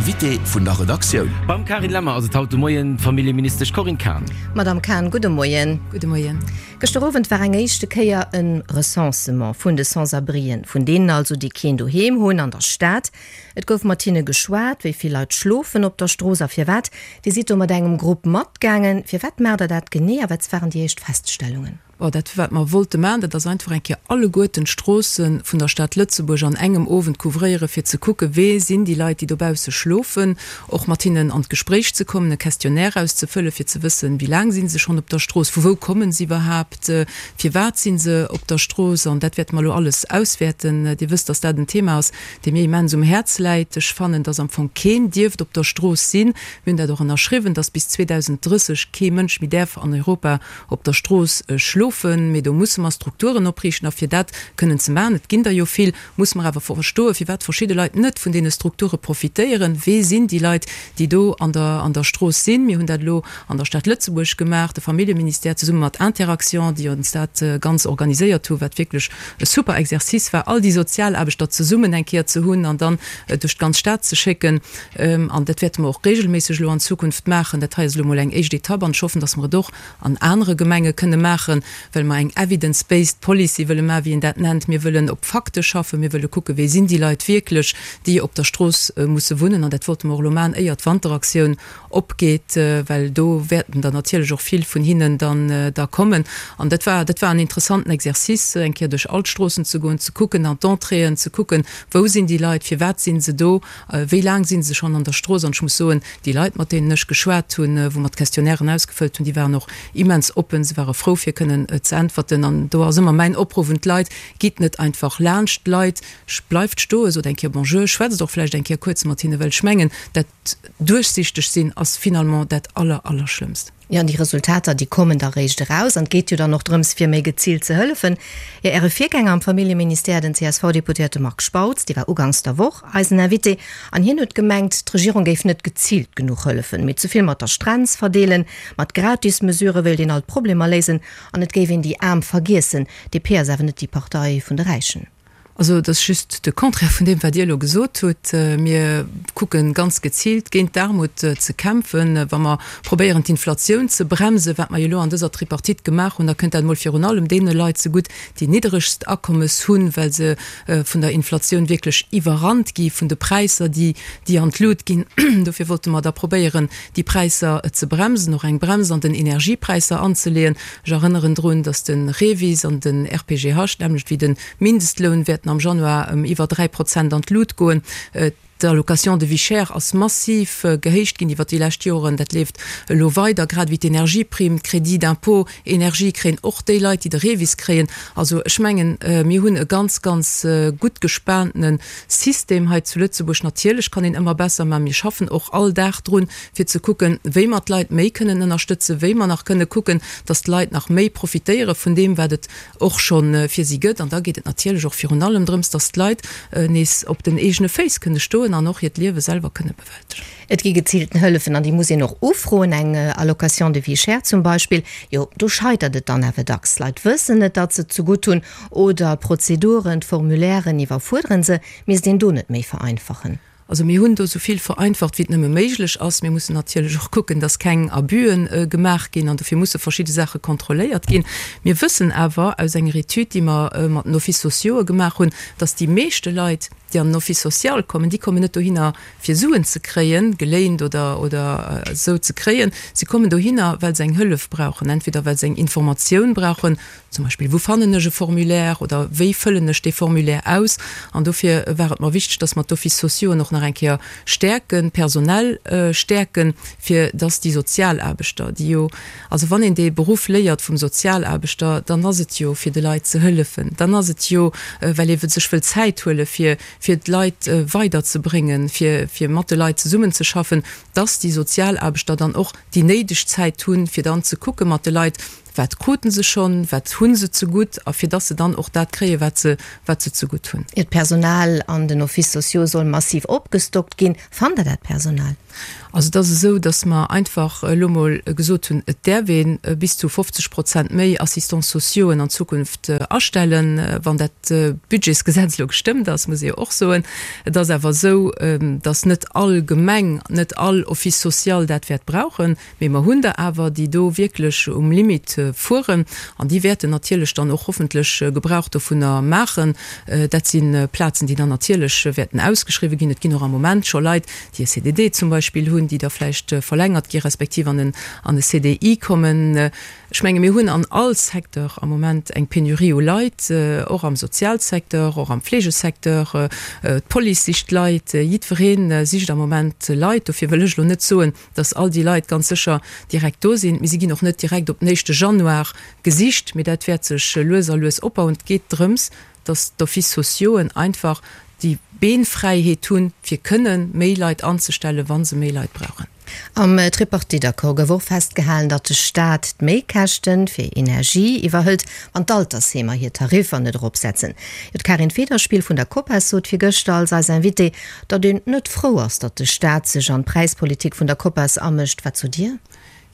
Invité vun der Redaktioun. Beim Carine Lemmer ass et haut de Moien d'Familljeministesch Corinne Cahen. Madamm Cahen, gudde Moien. Gudde Moien. Gëschter Owend war eng éischte Kéier e Recensement vun de Sans-abrien, vun deenen also, déi keen Doheem hunn an der Stad. Et gouf mat hinne geschwat, wéi vill Leit schlofen op der Strooss a firwat. Dir sidd do mat engem Grupp matgaangen. Firwat maacht der dat genee a wat waren déi éischt Feststellungen? Bon, dat wat mer wollte maachen, dat ass einfach eng Kéier alleguerten d'Stroosse vun der Stad Lëtzebuerg an engem Owend couvréieren, fir ze kucken, wee sinn déi Leit, déi dobausse schlofen, och mat hinnen an d'Gespréich ze kommen, e Questionnaire auszefëllen, fir ze wëssen, wéi laang si se schonn op der Strooss, vu wou komme se iwwerhaapt, firwat si se op der Strooss. An dat wäerte mer elo alles auswäerten. Dir wësst, dass dat en Thema ass, dee mir immens um Häerz läit. Ech fannen, dass am Fong keen dierft op der Strooss sinn. Mir hunn dat och ënnerschriwwen, dass bis 2030 kee Mënsch méi däerf an Europa op der Strooss schlofen, mee do musse mer Strukturen opriichten. A fir dat kënnen ze maachen, et ginn der jo vill, musse mer awer verstoen, firwat verschidde Leit net vun deene Strukture profitéieren. Wee sinn déi Leit, déi do an der an der Strooss sinn? Mir hunn dat elo an der Stad Lëtzebuerg gemaach, de Familljeministère zesumme mat Interaction, déi ons dat ganz organiséiert hu, wat wierklech e super Exercice war, all déi Sozialaarbechter zesummen eng Kéier ze hunn an dann duerch d'ganz Stad ze schécken. An dat wäerte mer och regelméisseg elo an Zukunft maachen. Dat hei ass elo emol eng éischt Etapp an ech hoffen, dass mer et och an anere Gemenge kënne maachen, well mer eng evidence-based policy wëlle maachen, wéi een dat nennt. Mir wëllen op Fakte schaffen. Mir wëlle kucken, wee sinn déi Leit wierklech, déi op der Strooss musse wunnen. An dat wollte mer och elo maachen, éier d'Wanteraktioun opgeet, well do wäerten der natierlech och vill vun hinnen dann da kommen. An dat war, dat war en interessanten Exercice, eng Kéier duerch all d'Stroossen ze goen, ze kucken, an d'Entréeën ze kucken, wou sinn déi Leit, firwat si se do, Wéi laang si se schonn an der Strooss? An ech muss soen, déi Leit, mat deenen ech geschwat hunn, wou mer d'Questionnairen ausgefëllt hunn, déi waren och immens oppen. Se ware frou, fir kënnen ze äntwerten. An do ass ëmmer mäin Opruff un d'Leit, Gitt net einfach laanscht d'Leit, bleift stoen, sot eng Kéier Bonjour, schwätzt och vläicht eng Kéier kuerz mat hinnen, well ech mengen, dat duerchsichteg sinn ass finalement dat aller, allerschlëmmst. Jo, an déi Resultater, déi kommen da réischt eraus. An et geet jo dann och drëms, fir méi geziilt ze hëllefen. Jo, Äre Virgänger am Familljeministère, den CSV-Deputéierte Marc Spautz, dee war uganks der Woch eisen Invité, an hien huet gemengt, d'Regierung géif net geziilt genuch hëllefen, mee ze vill mat der Strenz verdeelen. Mat Gratismesurë wéilt een all d'Problemer léisen an et géif een déi Aarm vergiessen. DP ass awer net déi Partei vun de Räichen. Also et ass just de Contraire vun deem, wat Dir elo gesot hutt. Mir kucke ganz geziilt géint d'Aarmut ze kämpfen. Wa mer probéieren d'Inflatioun ze bremsen, wat mer jo elo an dëser Tripartite gemaach hunn, da kënnt dat emol virun allem deene Leit zegutt, déi nidderegst Akommes hunn, well se vun der Inflatioun wierklech iwwerrannt gi vun de Präisser, déi déi an d'Lut ginn. Dofir wollte mer da probéieren, déi Präisser ze bremsen, och eng Brems an den Energiepräisser anzeleeën. Ech erënneren drun, datt de REVIS an den RPGH, d'nämmlecht wéi de Mindestloun wäerten am Januar ëm iwwer 3 Prozent an d'Lut goen. D'Allocation de vie chère ass massiv gehéicht ginn iwwer déi lescht Joren. Dat leeft elo weider, grad ewéi d'Energieprimm, d'Crédit d'impôt énergie kréien och déi Leit, déi de REVIS kréien. Also ech mengen, mir hunn e ganz, ganz gutt gespaantene System hei zu Lëtzebuerg. Natierlech kann een ëmmer besser, mä mir schaffen och all Dag drun, fir ze kucken, wéi mer d'Leit méi kënnen ënnerstëtzen, wéi mer nach kënne kucken, dass d'Leit nach méi profitéiere vun deem, wat et och scho fir si gëtt. An da geet et natierlech och virun allem drëms, dass d'Leit nees op den eegene Féiss kënne stoen an och hiert Liewe selwer kënne bewältegen. Et gi geziilten Hëllefen an déi muss een och ufroen, eng Allocation de vie chère zum Beispill. Jo, do scheitert et dann awer dacks. D'Leit wëssen net, datt se et zegutt hunn oder d'Prozeduren, d'Formulairen iwwerfuerderen se. Misst een do net méi vereinfachen? Also mir hunn do esou vill vereinfacht, wéi et nëmme méiglech ass. Mir mussen natierlech och kucken, dass keng Abüen gemaach ginn an dofir musse verschidde Saache kontrolléiert ginn. Mir wëssen awer aus enger Etüd, déi mer mat den Offices sociaux'e gemaach hunn, dass déi meeschte Leit, déi an den Office social kommen, déi kommen net dohinner, fir Suen ze kréien, geléint oder oder esou ze kréien. Si kommen dohinner, well se eng Hëllef brauchen, entweder well se eng Informatioun brauchen, Zum Beispill, Wou fannen ech e Formulaire oder wéi fëllen ech dee Formulaire aus? An dofir war et mer wichteg, dass mer d'Offices sociauxen och nach eng Kéier stäerken, personell stäerken, fir dass déi Sozialaarbechter, déi jo, also wann een dee Beruff léiert vum Sozialaarbechter, dann ass et jo fir de Leit ze hëllefen, dann ass et jo, well ee sech wëll Zäit huele fir, fir d'Leit weiderzebréngen, fir, fir mat de Leit zesummenzeschaffen, dass déi Sozialaarbechter dann och déi néideg Zäit hunn, fir dann ze kucke mat de Leit, Wat kruten se schonn, wat hu se zegutt a fir dass se dann och dat kréien, wat se, wat se zegutt hunn. D'Personal an den Offices sociaux soll massiv opgestockt ginn. Fannt Der dat Personal? Also et ass esou, datt mer einfach elo mol gesot hunn, et däerf ee bis zu 50 Prozent méi Assistants sociauxen an Zukunft astellen, wann dat Budgetsgesetz elo gestëmmt ass, muss ee jo och soen. Et ass awer esou, datt net all Gemeng, net all Office social dat wäert brauchen. Mee mer hunn der awer, déi do wierklech um Limit fueren an déi wäerten natierlech dann och hoffentlech Gebrauch dovunner maachen. Dat si Plazen, déi dann natierlech wäerten ausgeschriwwen ginn. Et ginn och am Moment scho Leit, déi e CDD zum Beispill hunn, déi da vläicht verlängert gi respektiv an en an e CDI kommen. Ech menge mir hunn an all Secteur am Moment eng Penurie u Leit, och am Sozialsecteur, och am Fleegesecteur. D'Police sicht Leit, jiddweree sicht am Moment Leit. Dofir wëll ech elo net soen, dass all déi Leit ganz sécher direkt do sinn. Mee si ginn och net direkt op den éischte Januar gesicht, mee dat wäert sech lues a lues opbauen. Et geet drëms, dass d'Offices sociauxen einfach déi Beenfräiheet hunn, fir kënne méi Leit anzestellen, wa se méi Leit brauchen. Am Tripartite-Accord gouf och festgehalen, datt de Staat d'Méikäschte fir Energie iwwerhëlt, wann d'Altersheemer hir Tariffer net eropsetzen. Jo, d'Karin Federspiel vun der Copas sot virgëschter als eis Invitée, Datt een net frou ass, datt de Staat sech an d'Präispolitik vun der Copas amëscht. Wat sot Dir?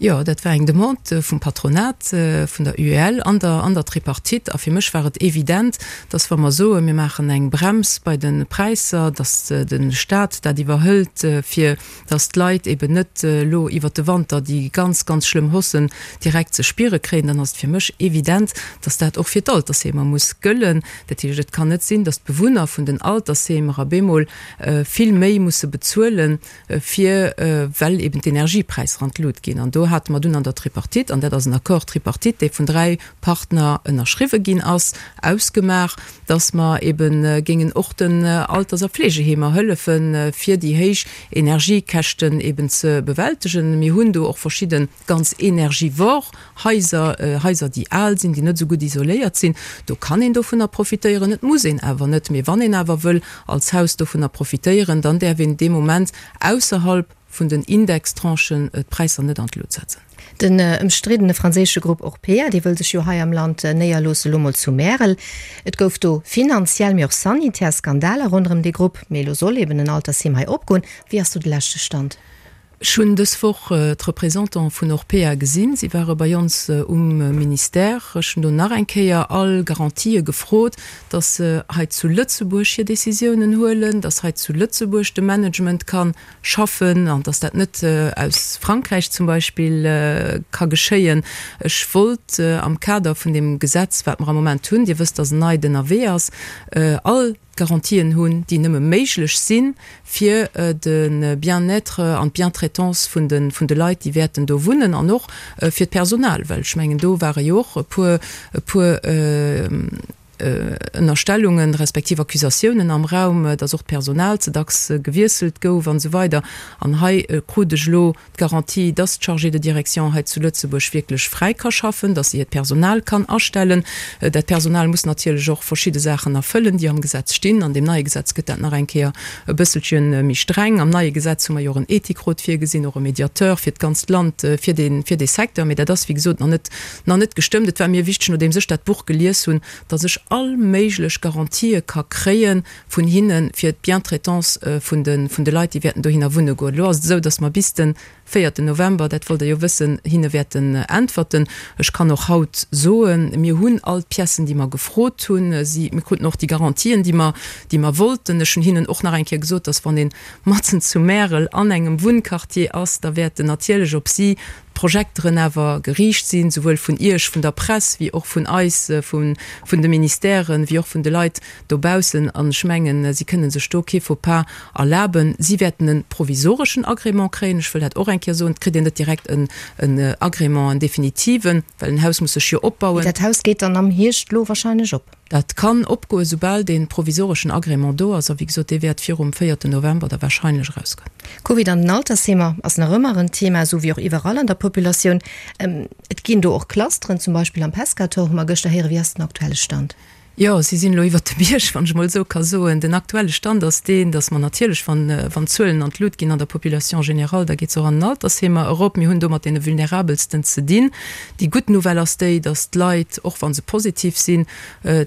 Jo, dat war eng Demande vum Patronat, vun der UEL an der an der Tripartite. A fir mech war et evident, datt wa mer soen, mir maachen eng Brems bei de Präisser, datt de Staat dat iwwerhëlt, fir datt d'Leit eben net elo iwwert de Wanter déi ganz, ganz schlëmm Haussen direkt ze spiere kréien, dann ass et fir mech evident, datt dat och fir d'Altersheemer muss gëllen. Dat heescht, et kann net sinn, datt d'Bewunner vun den Altersheemer op eemol vill méi musse bezuelen, fir well eben d'Energiepräisser an d'Lut ginn. An do hate mer dunn an der Tripartite, an dat ass en Accord tripartite, dee vun 3 Partner ënnerschriwwe ginn ass, ausgemaach, datt mer ebe géingen och den Alters a Fleegeheemer hëllefen, fir déi héich Energiekäschten eben ze bewältegen. Mir hunn do och verschidde ganz energivor Haiser, Haiser déi al sinn, déi net esou gutt isoléiert sinn, do kann een dovunner profitéieren, et muss een awer net. Mee wann een awer wëll als Haus dovunner profitéieren, dann däerf een dee Moment ausserhalb vun den Indextranchen d'Präisser net an d'Lut setzen. Den ëmstriddene franséische Grupp Orpea, dee wëll sech jo hei am Land néierloossen, elo mol zu Märel. Et gouf do finanziell, mee och sanitär Skandaler ronderëm dee Grupp. Mee elo soll eben en Altersheem hei opgoen. Wéi ass do de leschte Stand? Ech hunn dës Woch d'Représentante vun Orpea gesinn. Si ware bei ons um Ministère. Ech hunn do nach eng Kéier all Garantië gefrot, dass se hei zu Lëtzebuerg hir Décisiounen huelen, dass hei zu Lëtzebuerg de Management ka schaffen an dass dat net aus Frankräich zum Beispill ka geschéien. Ech wollt am Kader vun deem Gesetz, wat mer am Moment hunn, Dir wësst, dass en neit ënnerwee ass, all Garantien hunn, déi nëmme méiglech sinn, fir de Bien-être an d'Bientraitance vun de vun de Leit, déi wäerten do wunnen, an och fir d'Personal, well ech mengen, do ware jo och e puer e puer Ënnerstellungen respektiv Accusatiounen am Raum, datt och d'Personal ze dacks gewiesselt gouf an esou weider. An hei krut ech elo D'Garantie, dass d'Chargée de direction hei zu Lëtzebuerg wierklech fräi ka schaffen, dass se hiert Personal kann astellen. Dat Personal muss natierlech och verschidde Saachen erfëllen, déi am Gesetz stinn. An deem neie Gesetz gëtt dat nach eng Kéier e bësselche méi streng. Am neie Gesetz hu mer jo och en Ethikrot virgesinn, och e Mediateur fir d'ganzt Land, fir dee, fir dee Secteur. Mee dat ass, wéi gesot, nach net, nach net gestëmmt. Et war mir wichteg, nodeems ech dat Buch gelies hunn, dass ech all méiglech Garantië ka kréien, vun hinne fir d'Bientraitance vun de vun de Leit, déi wäerten dohinner wunne goen. Elo ass et esou, datt mer bis de véierten November, dat wollt Der jo wëssen, hinne wäerten äntwerten. Ech kann och haut soen, mir hunn all d'Piècen, déi mer gefrot hunn. Si, mir kruten och déi Garantien, déi mer, déi mer wollten. Ech hunn hinnen och nach eng Kéier gesot, datt wann ee matzen zu Märel an engem Wunnquartier ass, da wäerten natierlech op si d'Projekteren awer geriicht sinn, souwuel vun Iech, vun der Press, wéi och vun eis, vun de Ministèren, wéi och vun de Leit dobaussen. An ech mengen, si kënne sech do kee Faux-pas erlaben. Si wäerten e provisoreschen Agrément kréien. Ech wëll dat och eng Kéier soen. Et kritt een net direkt en Agrément, en definitiven, well en Haus muss sech jo opbauen. Dat Haus geet dann am Hierscht elo wahrscheinlech op? Dat kann opgoen, soubal dee provisoreschen Agrément do ass. A wéi gesot, dee wäert virum véierten November da wahrscheinlech erausgoen. Covid an den Altersheemer ass nach ëmmer en Thema, esou wéi och iwwerall an der Populatioun. Et ginn do och Clusteren, zum Beispill am Pescator hu mer gëschter héieren. Wéi ass den aktuelle Stand? Jo, si sinn elo iwwert de Bierg, wann ech emol esou ka soen. Den aktuelle Stand ass deen, datt mer natierlech, wann, wann d'Zuelen an d'Lut ginn an der Population générale, da geet se och an den Altersheemer erop. Mir hunn do mat deene Vulnerabelsten ze dinn. Déi gutt Nouvelle ass déi, datt d'Leit, och wa se positiv sinn,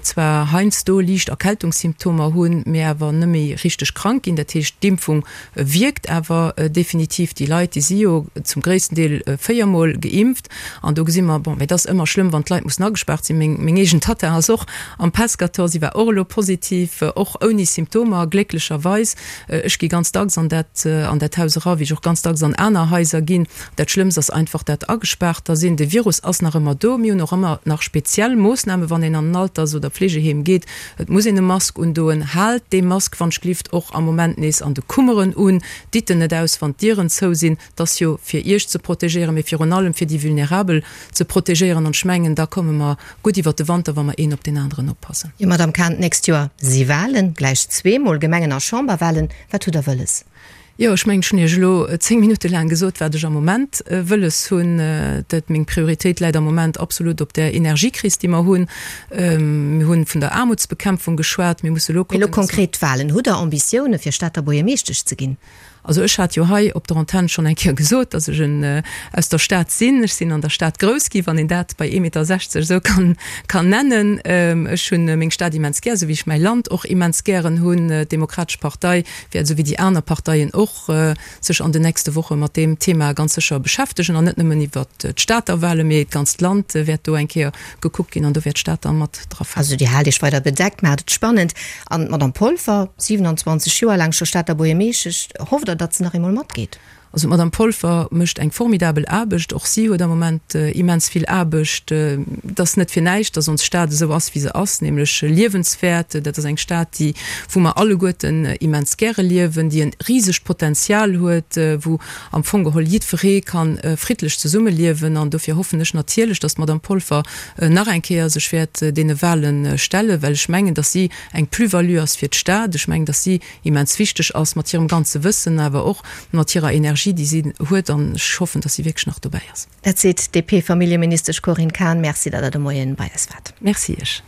zwar heiansdo liicht Erkältungssymptomer hunn, mee awer net méi richteg krank ginn. Dat heescht, d'Impfung wierkt awer definitiv. Déi Leit, déi si jo zum gréissten Deel véiermol geimpft. An do gesi mer, bon, mee et ass ëmmer schlëmm, wann d'Leit mussen agespaart sinn. Meng, meng eegen Tatta ass och am Pescator, si war och elo positiv, och ouni Symptomer, glécklecherweis. Ech gi ganz dacks an dat, an dat Haus era, wéi ech och ganz dacks an aner Haiser ginn. Dat Schlëmmst ass einfach dat agespaarter sinn. De Virus ass nach ëmmer do. Mir hunn och ëmmer nach speziell Moossnamen, wann een an en Alters oder Pflegeheem geet. Et muss een e Mask undoen. Haalt dee Mask wann ech glift och am Moment nees an de Kummeren un. Ditt en net aus, wann d'Dieren zou sinn. Et ass jo fir Iech ze protegéieren, mee virun allem fir déi Vulnerabel ze protegéieren. An ech mengen, da komme mer gutt iwwert de Wanter, wa mer een op deen aneren oppassen. Jo, Madamm Cahen, d'nächst Joer si Wahlen, gläich zweemol, Gemengen a Chamberwahlen. Wat hutt Der wëlles? Jo, ech mengen, ech hunn Iech elo 10 Minutte laang gesot, wat ech am Moment wëlles hunn. Dat, meng Prioritéit läit am Moment absolut op där Energiekris, déi mer hunn. Mir hunn vun der Aarmutsbekämpfung geschwat. Mir musse elo kucken, Mee elo konkret d'Wahlen. Hutt Der Ambitioune fir Stater Buergermeeschtesch ze ginn? Also ech hat jo hei op der Antenn schonn eng Kéier gesot, datt ech en aus der Stad sinn. Ech sinn an der Stad grouss gi, wann een dat bei ee Meter 60 esou kann kann nennen. Ech hunn meng Stad immens gär, esou wéi ech mäi Land och immens gären hunn. D'Demokratesch Partei wäert, esou wéi déi aner Parteien och, sech an den nächste Woche mat deem Thema ganz sécher beschäftegen. An net nëmmen iwwert d'Stater Wahlen, mee d'ganzt Land wäert do eng Kéier gekuckt ginn an do wäert d'Stad da mat dra falen. Also Dir haalt Iech weider bedeckt, maacht et spannend. An d'Madame Polfer, 27 Joer laang scho Stater Buergermeeschtesch, hofft Der, datt se nach eemol matgeet? Also d'Madame Polfer mécht eng formidabel Aarbecht. Och si huet am Moment immens vill Aarbecht. Et ass net fir näischt, datt ons Stad esou ass, wéi se ass, nämlech liewenswäert. Dat ass eng Stad, déi, wou mer alleguerten immens gäre liewen, déi e risegt Potenzial huet, wou am Fong geholl jiddweree ka friddlech zesummeliewen. An dofir hoffen ech natierlech, datt d'Madame Polfer nach eng Kéier sech wäert deene Wahle stellen, well ech mengen, datt si eng Plus-value ass fir d'Stad. Ech mengen, datt si immens wichteg ass mat hirem ganze Wëssen, awer och mat hirer Energie, déi si huet. An ech hoffen, datt si wierklech nach dobäi ass. Dat seet d'DP-Familljeministesch Corinne Cahen. Merci, datt Der de Moien bei eis waart. Merci Iech.